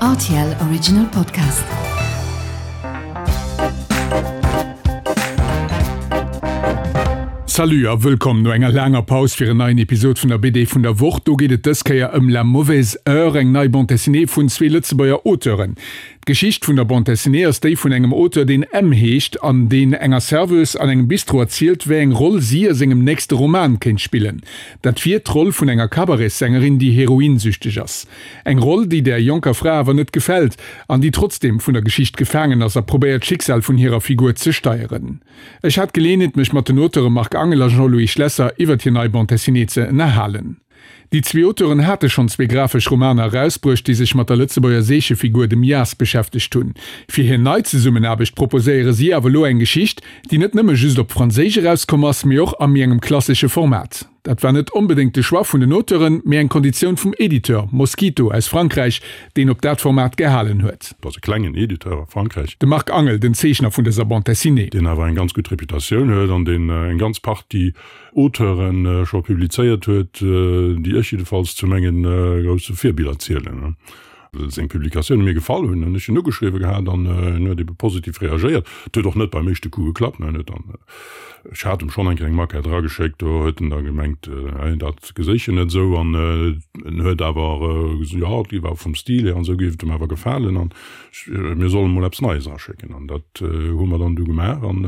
Rtl Original Podcast. Salut a wëllkomm no enger laanger Paus fir en neien Episod vun der BD vun der Woch. Do geet et dës Kéier ëm La mauvaise heure, eng nei Bande dessinée vun zwee Lëtzebuerger Auteuren. D'Geschicht vun der Bande dessinée ass déi vun engem Auteur, deen M. heescht an deen enger Serveuse an engem Bistro erzielt, wéi eng Roll si a sengem nächste Roman kéint spillen. Dat wier d'Roll vun enger Cabaretssängeriin, déi heroinsüchteg ass. Eng Roll, déi där jonker Fra awer net gefält an déi trotzdeem vun der Geschicht gefaangen ass a probéiert, d'Schicksal vun hirer Figur ze steieren. Ech hat d'Geleeënheet, mech mat den Auteure Marc Angel a Jean-Louis Schlesser iwwert hir nei Bande dessinée ze ënnerhalen. Déi zwee Auteuren hate schonn zwee grafesch Romaner erausbruecht, déi sech mat der Lëtzebuerger Seechefigur, dem Jas, beschäftegt hunn. Fir hir nei Zesummenaarbecht proposéiere si awer elo eng Geschicht, déi net nëmme just op Franséisch erauskomm ass, mee och a méi engem klassesche Format. Dat war net onbedéngt de Choix vun den Auteuren, mee eng Konditioun vum Editeur, Mosquito aus Frankräich, deen op dat Format gehalen huet. Dat ass e klengen Editeur a Frankräich. De Marc Angel, den Zeechner vun dëser Bande dessinée. Deen awer eng ganz gutt Reputatioun huet an deen eng ganz Partie Auteuren scho publizéiert huet, déi ech jiddefalls zu menge grousse Virbiller zielen. Well seng Publikatioune mir gefall hunn, hunn ech en ugeschriwwe gehat an en huet ebe positiv reagéiert. Et huet och net beim éischte Coup geklappt. En huet dann, ech hat em schonn eng kleng Maquette erageschéckt, do huet en da gemengt, dat geséich en net esou an en huet awer gesot, jo, et géif awer vum Stil hier an esou géif et em awer gefalen an mir solle mol eppes Neies eraschécken. An dat hu mer dann du gemaach an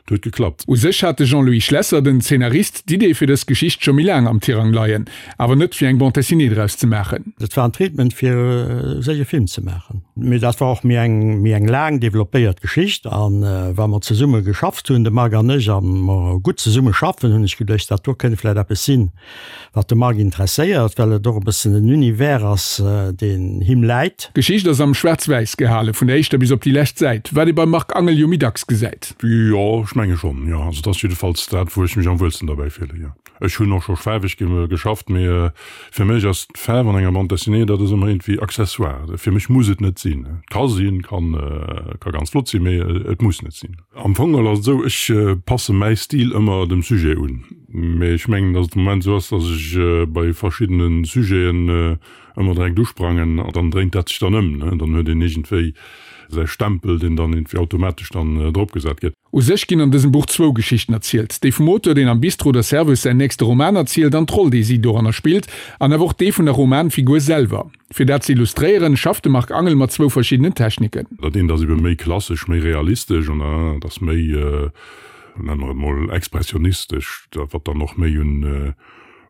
Et huet geklappt. U sech hat de Jean-Louis Schlesser, den Zeenarist, d'Idee fir dës Geschicht scho méi laang am Tirang leien, awer net fir eng Bande dessinée draus ze maachen. Dat war en Treatment fir sech e Film ze maachen. Mee dat war och méi eng méi eng laang developpéiert Geschicht. A wa mer zesumme geschafft hunn, de Marc an ech, a mer gutt zesumme schaffen, hunn ech geduecht, dat do kënnt vläicht eppes sinn, Wat de Marc interesséiert, well et och e bëssen en Univers ass, deen him läit. D'Geschicht ass am Schwaarz-Wäiss gehale vun der éischter bis op déi lescht Säit, wat ee beim Marc Angel jo méi dacks gesäit. Jo, ech menge schonn, jo. Also et ass jiddefalls dat, wou ech mech am wuelsten derbäi fillen, jo. Ech hunn och scho faarweg geschafft, mee fir mech ass d'Faarf an enger Bande dessinée, dat ass ëmmer iergendwéi accessoire. Fir mech muss et net sinn. Et ka sinn, kann, ka ganz flott sinn, mee et muss net sinn. Am Fong geholl ass et esou, ech passe mäi Stil ëmmer dem Sujet un. Mee ech mengen, datt et de Moment esou ass, datt ech bei verschiddene Sujeten ëmmer direkt usprangen an dann dréint dat sech dann ëm. Dann huet een iergendwéi säi Stempel, deen dann iergendwéi automatesch dann dropgesat gëtt. U sech ginn an dësem Buch zwou Geschichten erzielt, déi vum Auteur, deen am Bistro der Serveuse säin nächste Roman erzielt, an d'Roll, déi si doranner spillt, an awer och dee vun der Romanfigur selwer. Fir dat ze illustréieren, schafft de Marc Angel mat zwou verschiddenen Techniken. Dat eent ass ebe méi klassesch, méi realistesch an dat anert ass méi, nenne mer et mol, expressionistesch, wat dann och méi un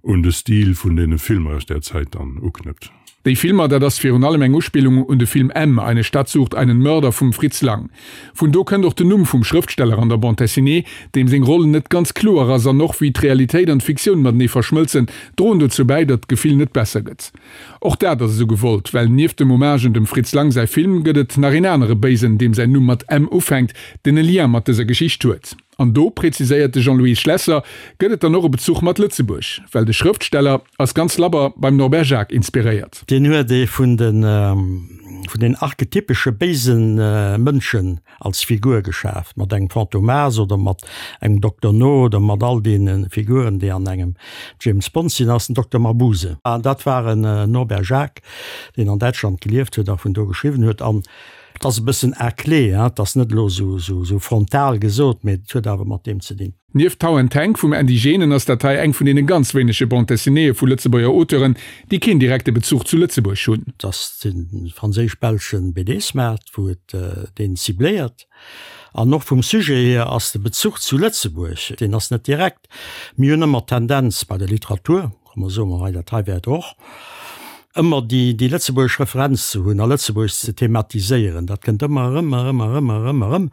un de Stil vun deene Filmer aus där Zäit dann uknëppt. Déi Filmer, dat ass virun allem eng Uspillung un de Film M, Eine Stadt sucht einen Mörder vum Fritz Lang. Vun do kënnt och den Numm vum Schrëftsteller an der Bande dessinée, deem seng Roll net ganz kloer ass an och wéi d'Realitéit an d'Fiktioun matenee verschmëlzen, droen dozou bäi, datt d'Gefill net besser gëtt. Och dat ass esou gewollt, well nieft dem Hommage un dem Fritz Lang säi Film gëtt et nach een anere Béisen, deem säin Numm mat M ufänkt, deen e Lien mat dëser Geschicht huet. An do, präziséiert de Jean-Louis Schlesser, gëtt et dann och e Bezuch mat Lëtzebuerg, well de Schrëftsteller ass ganz labber beim Norbert Jacques inspiréiert. Deen huet ee vun den archetypesche béise Mënschen als Figur geschaaft, mat engem Fantomas oder mat engem Dokter No oder mat all deene Figuren, déi an engem James Bond sinn, ass den Dokter Mabuse. An dat war en Norbert Jacques, deen an Däitschland gelieft huet a vun do geschriwwen huet. An et ass e bëssen à clé, hein, et ass net elo esou frontal gesot, mee et huet awer mat deem ze dinn. Nieft Tau and Tank vum Andy Genen ass dat hei eng vun deene ganz wéinege Bande dessinéeë vu Lëtzebuerger Auteuren, déi keen direkte Bezuch zu Lëtzebuerg hunn. Et ass de franséisch-belsche BD-Smart, wou et deen cibléiert. An och vum Sujet hier ass de Bezuch zu Lëtzebuerg, deen ass net direkt. Mir hunn ëmmer d'Tendenz bei der Literatur, komm mer soe mer hei, dat hei wäert och ëmmer déi déi lëtzebuergesch Referenz ze hunn a Lëtzebuerg ze thematiséieren. Dat kënnt ëmmer erëm, erëm, erëm, erëm, erëm,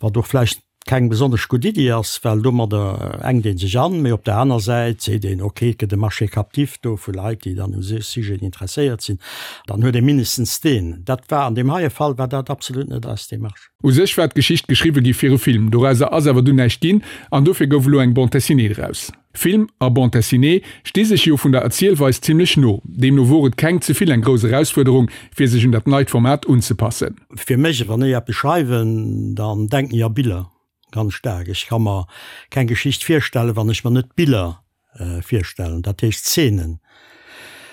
wat och vläicht keng besonnesch gutt Iddi ass, well domadder enkt ee sech an, mee op der aner Säit seet een, ok, et gëtt e Marché captif do vu Leit, déi dann u Sujeten interesséiert sinn, dann huet ee mindestens deen. Dat war an deem heie Fall war dat absolut net eis Démarche. U sech war d'Geschicht geschriwwe gi fir e Film, dorauser ass awer dunn näischt ginn an dofir gouf elo eng Bande dessinée draus. Film a Bande dessinée sti sech jo vun der Erzielweis zimlech no, deemno wor et keng ze vill eng grouss Erausfuerderung fir sech un dat neit Format unzepassen. Fir mech, wann ech eppes schreiwen, dann denken ech a Biller, ganz staark. Ech ka mer keng Geschicht virstellen, wann ech mer net Biller virstellen, dat heescht Szenen.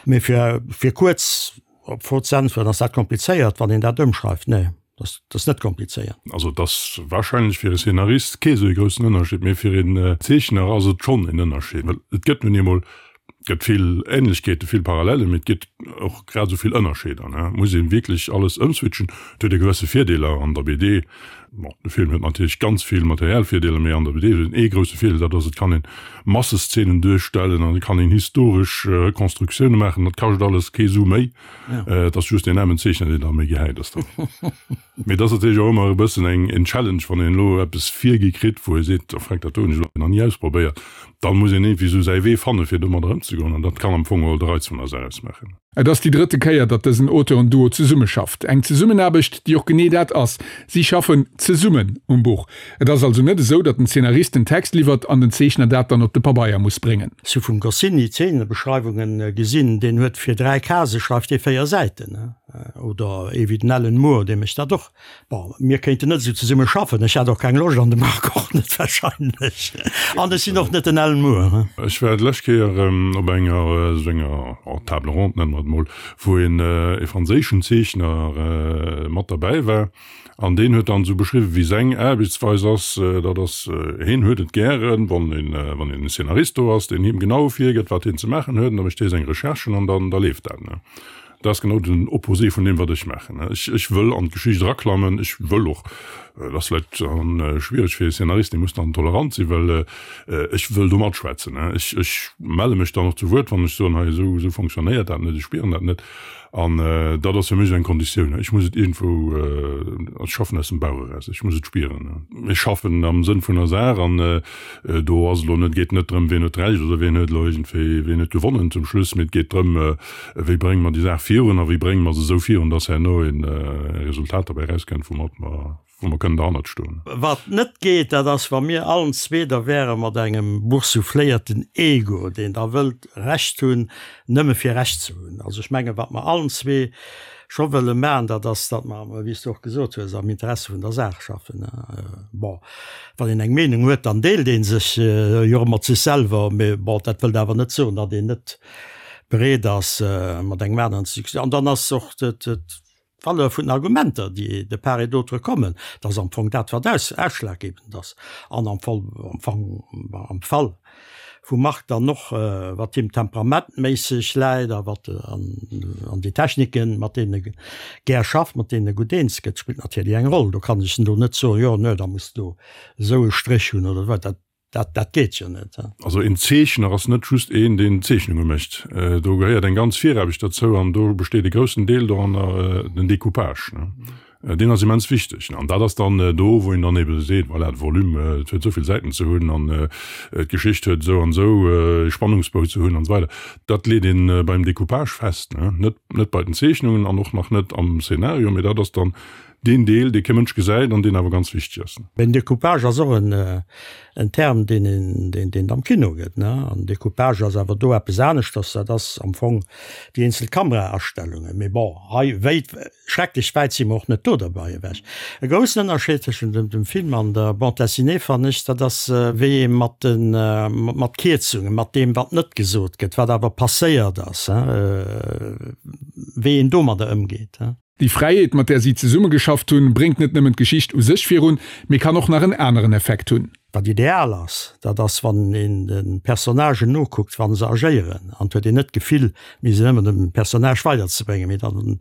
Mee fir, fir kuerz. Op d'Fro ze äntweren, ass dat komplizéiert, wann een dat ëmschreift? Nee, dat ass net komplizéiert. Also et ass warscheinlech fir e Szenarist kee sou e groussen Ënnerscheed, mee fir een Zeechner ass et schonn en Ënnerscheed, well et gëtt nun eemol, et gëtt vill Änlechkeeten, vill Parallellen, mee et gëtt och grad esou vill Ënnerscheeder. Et muss ee wierklech alles ëmswitchen. Et huet e gewësse Virdeeler an der BD. Bon, de Film huet natierlech ganz vill materiell Virdeeler, mee an der BD huet en ee grousse Virdeel, dat ass, et kann een Masseszenen duerstellen an et kann een historesch Rekonstruktioune maachen. Dat kascht alles kee Su méi. Et ass just deen aarmen Zeechner, deen da méi gehäit ass dann. Mee et ass natierlech och ëmmer e bëssen eng en Challenge, wann een elo eppes virgi kritt, wou ee seet, oh freck, dat do hunn ech elo nach ni ausprobéiert. Da muss een iergendwéi esou säi Wee fanne fir domadder ëmzegoen an dat kann am Fong geholl de Reiz vun der Saach ausmaachen. Et ass déi drëtte Kéier, datt dësen Auteuren-Duo zesummeschafft. Eng Zesummenaarbecht, déi och genee dat ass, Si schaffen zesummen um Buch. Et ass also net esou, datt den Zeenarist den Text liwwert an den Zeechner dat dann op de Pabeier muss bréngen. Ech hu vum Goscinny Zeenebeschreiwungen gesinn, deen huet fir 3 Case schreift dee 4 Säiten. Oder ee wéi den Alan Moore, dee mécht dat och. Bon, mir kéinten net esou zesumme schaffen. Ech hätt och keng Loscht an de Marc och net wahrscheinlech. An ech sinn och net den Alan Moore. Ech war d'lescht Kéier op enger esou enger Table ronde, nenne mer et mol, wou een e franséischen Zeechner mat derbäi war. An deen huet dann esou beschriwwen, wéi seng Aarbechtsweis ass. Dat ass, heen huet et gären, wann een, wann een Szenarist do ass, deen him genau virgëtt, wat hien ze maachen huet, an da mécht hie seng Recherchen an dann, da leeft dat. Dat ass genau den Opposé vun deem, wat ech maachen. Ech, ech wëll an d'Geschicht eraklammen. Ech wëll och, dat ass vläicht dann schwiereg fir e Szenarist, dee muss dann tolerant sinn, well ech wëll do matschwätzen. Ech, ech melle mech dann och zu Wuert, wann ech soen, hei esou, esou fonctionnéiert dat net, ech spieren dat net. An dat ass fir mech esou eng Konditioun. Ech muss et iergendwou, ech schaffen aus dem Bauch eraus, ech muss et spieren. Ech schaffen am Sënn vun der Saach an do ass elo net, geet net drëm, wien huet Recht oder wien huet elo iergendwéi, wien huet gewonnen zum Schluss, mee et geet drëm, Wéi brénge mer déi Saach virun a wéi brénge mer se esou virun, dass herno e Resultat derbäi erauskënnt, woumat mer, wou mer kënnen derhannert stoen. Wat net geet, dat ass, wa mir allen zwee da wäre mat engem boursoufléierten Ego, deen da wëllt Recht hunn, nëmme fir Recht ze hunn. Also ech mengen, wat mer allen zwee scho wëlle maachen, dat ass, datt mer, wéi s de och gesot hues, am Interesse vun der Saach schaffen. Bon, wann een eng Meenung huet, dann deelt ee sech jo och mat sech selwer, mee bon, dat wëllt awer net soen, datt een net bereet ass mat engem aneren ze diskutéieren. An dann ass och d'Valeur vun den Argumenter, déi de part et d'autre kommen, dat ass am Fong dat, wat ausschlaggebend ass. An am Fall, am Fong, am Fall vum Marc dann och, wat him temperamentméisseg läit a wat an déi Techniken, mat deenen e gär schafft, mat deenen e gutt eens gëtt, spillt natierlech eng Roll. Do kann ech en do net soen, jo, nö, da muss du esou e Stréch hunn oder wat. Dat Dat, dat geet jo net. Also een Zeechner ass net just een, deen Zeechnunge mécht. Do gehéiert eng ganz Viraarbecht derzou an do besteet e groussen Deel doranner, den Decoupage. Deen ass immens wichteg. An dat ass dann do, wou een dann ebe seet, voilà, de Volume, et huet esou vill Säiten ze hunn an d'Geschicht huet esou an esou e Spannungsbou ze hunn an esou weider. Dat leet ee beim Decoupage fest, net, net bei den Zeechnungen an och nach net am Szenario, mee dat ass dann Deen Deel, dee kee Mënsch gesäit an deen awer ganz wichteg ass. Den Decoupage ass och en Term, deen een, deen et am Kino gëtt, ne? An Decoupage ass awer do eppes aneschters, dat ass am Fong déi eenzel Kameraastellungen. Mee bon, hei wéit, schrecklech wäit si mer och net do derbei ewech. E groussen Ënnerscheed tëschent dem Film an der Bande dessinée fannen ech, dat ass wéi ee mat de, mat Kierzungen, mat deem wat net gesot gëtt, wat awer passéiert ass, wéi een domadder ëmgeet. Déi Fräiheet, mat där si zesummegeschafft hunn, bréngt net nëmmen d'Geschicht u sech virun, mee kann och nach en aneren Effekt hunn. Wat ideal ass, dat ass wann een de Personnagen nokuckt wa se agéieren an et huet een net d'Gefill mir sinn ëmmer dem Personnage weiderzebréngen, mee dann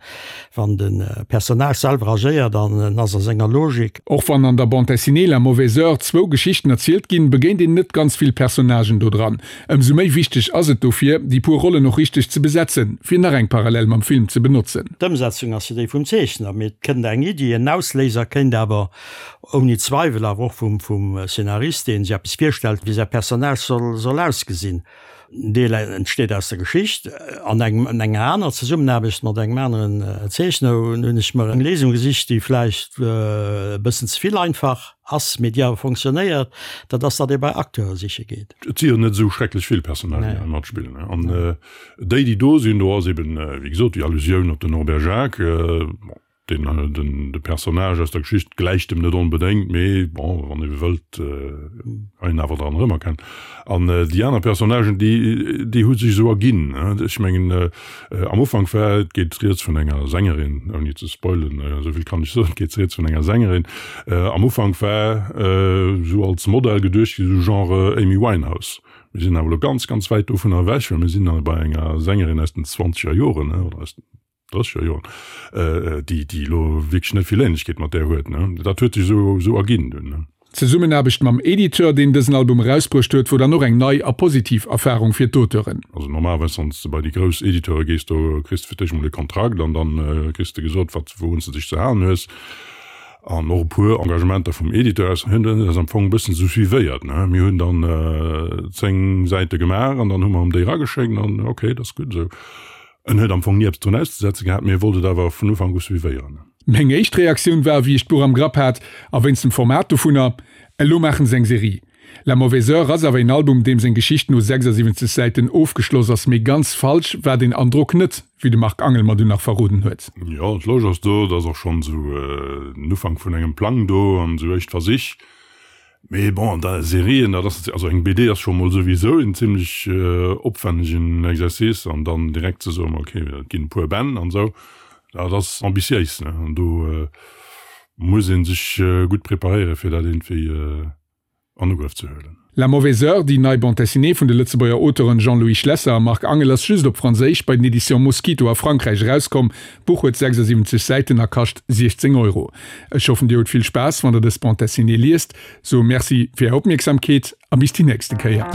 wann de Personnage selwer agéiert an en ass a senger Logik. Och wann an der Bande dessinée La mauvaise heure zwou Geschichten erzielt ginn, begéint een net ganz vill Personnagen do dran. Ëmsou méi wichteg ass et dofir, déi puer Rollen och richteg ze besetzen, fir nach eng Parallel mam Film ze benotzen. D'Ëmsetzung ass jo déi vum Zeechner, mee et kënnt eng Iddi, en Ausléiser kéint awer ouni Zweiwel awer och vum Szenarist, dee sech eppes virstellt, wéi säi Personnage soll ausgesinn. En Deel entsteet aus der Geschicht. An enger aner Zesummenaarbecht mat engem aneren Zeechner hunn ech mer eng Léisung gesicht, déi vläicht e bëssen ze vill einfach ass, mee déi awer fonctionnéiert, dat ass, datt ee bei Acteure siche geet. Et si jo net esou schrecklech vill Personnagen, déi hei matspillen. An déi, déi do sinn, do ass eben, wéi gesot, déi Allusioun op den Norbert Jacques. Bon. Den, den, de Personnage aus der Geschicht gläicht em net onbedéngt, mee bon, wann ee wëllt, kann een awer dran erëmerkennen. An déi aner Personnagen, déi, déi hu sech esou erginn. Ech mengen, am Ufank war, et geet rieds vun enger Sängerin, ouni ze spoilen, esou vill kann ech soen, et geet rieds vun enger Sängerin. Am Ufank war esou als Modell geduecht ginn, esou Genre Amy Winehouse. Mir sinn awer elo ganz, ganz wäit dovunner ewech, well mir sinn bei enger Sängerin aus den zwanzeger Joren, oder aus den drësseger Joren, déi, déi elo wierklech net vill Ähnlechkeet mat där huet. Dat huet sech esou, esou erginn dunn. D'Zesummenaarbecht mam Editeur, deen dësen Album erausbruecht huet, wor dann och eng nei a positiv Erfarung fir d'Auteuren. Also normalerweis, wann s de bei déi grouss Editeure gees, do kriss de fir d'éischt emol e Kontrakt an dann kriss de gesot, wat, wourun s de dech ze halen hues. An och e puer Engagementer vum Editeur aus hunn eis am Fong e bëssen esou suivéiert, ne. Mir hunn dann 10 Säite gemaach an dann hu mer em déi erageschéckt an ok, dat ass gutt esou. En huet am Fong ni eppes drun auszesetze gehat, mee e wollt et awer vun Ufank u suivéieren. Meng éischt Reaktioun war, wéi ech d'Buch am Grapp hat, a wéinst dem Format dovunner, Elo maachen se eng Serie. La mauvaise heure ass awer een Album, deem seng Geschicht no 76 Säiten ofgeschloss ass, mee ganz falsch war deen Androck net, wéi de Marc Angel mer dunn nach verroden huet. Jo, d'Loge ass do, et ass och schonn esou den Ufank vun engem Plang do an esou éischt Versich. Mee bon, da Serien, dat ass, also eng BD ass scho mol souwisou en zimlech opwännegen Exercice an dann direkt ze soen, ok, et ginn e puer Bänn an esou, dat ass ambitiéis, ne, an do muss ee sech gutt preparéieren, fir dat iergendwéi an Ugrëff ze huelen. La mauvaise heure, déi nei Bande dessinée vun de Lëtzebuerger Auteuren Jean-Louis Schlesser a Marc Angel ass just op Franséisch bei den Editions Mosquito a Frankräich erauskomm. D'Buch huet 76 Säiten a kascht 16 Euro. Ech hoffen dir hutt vill Spaass wann der dës Bande dessinée liest. Soe Merci fir är Opmierksamkeet a bis déi nächste Kéier.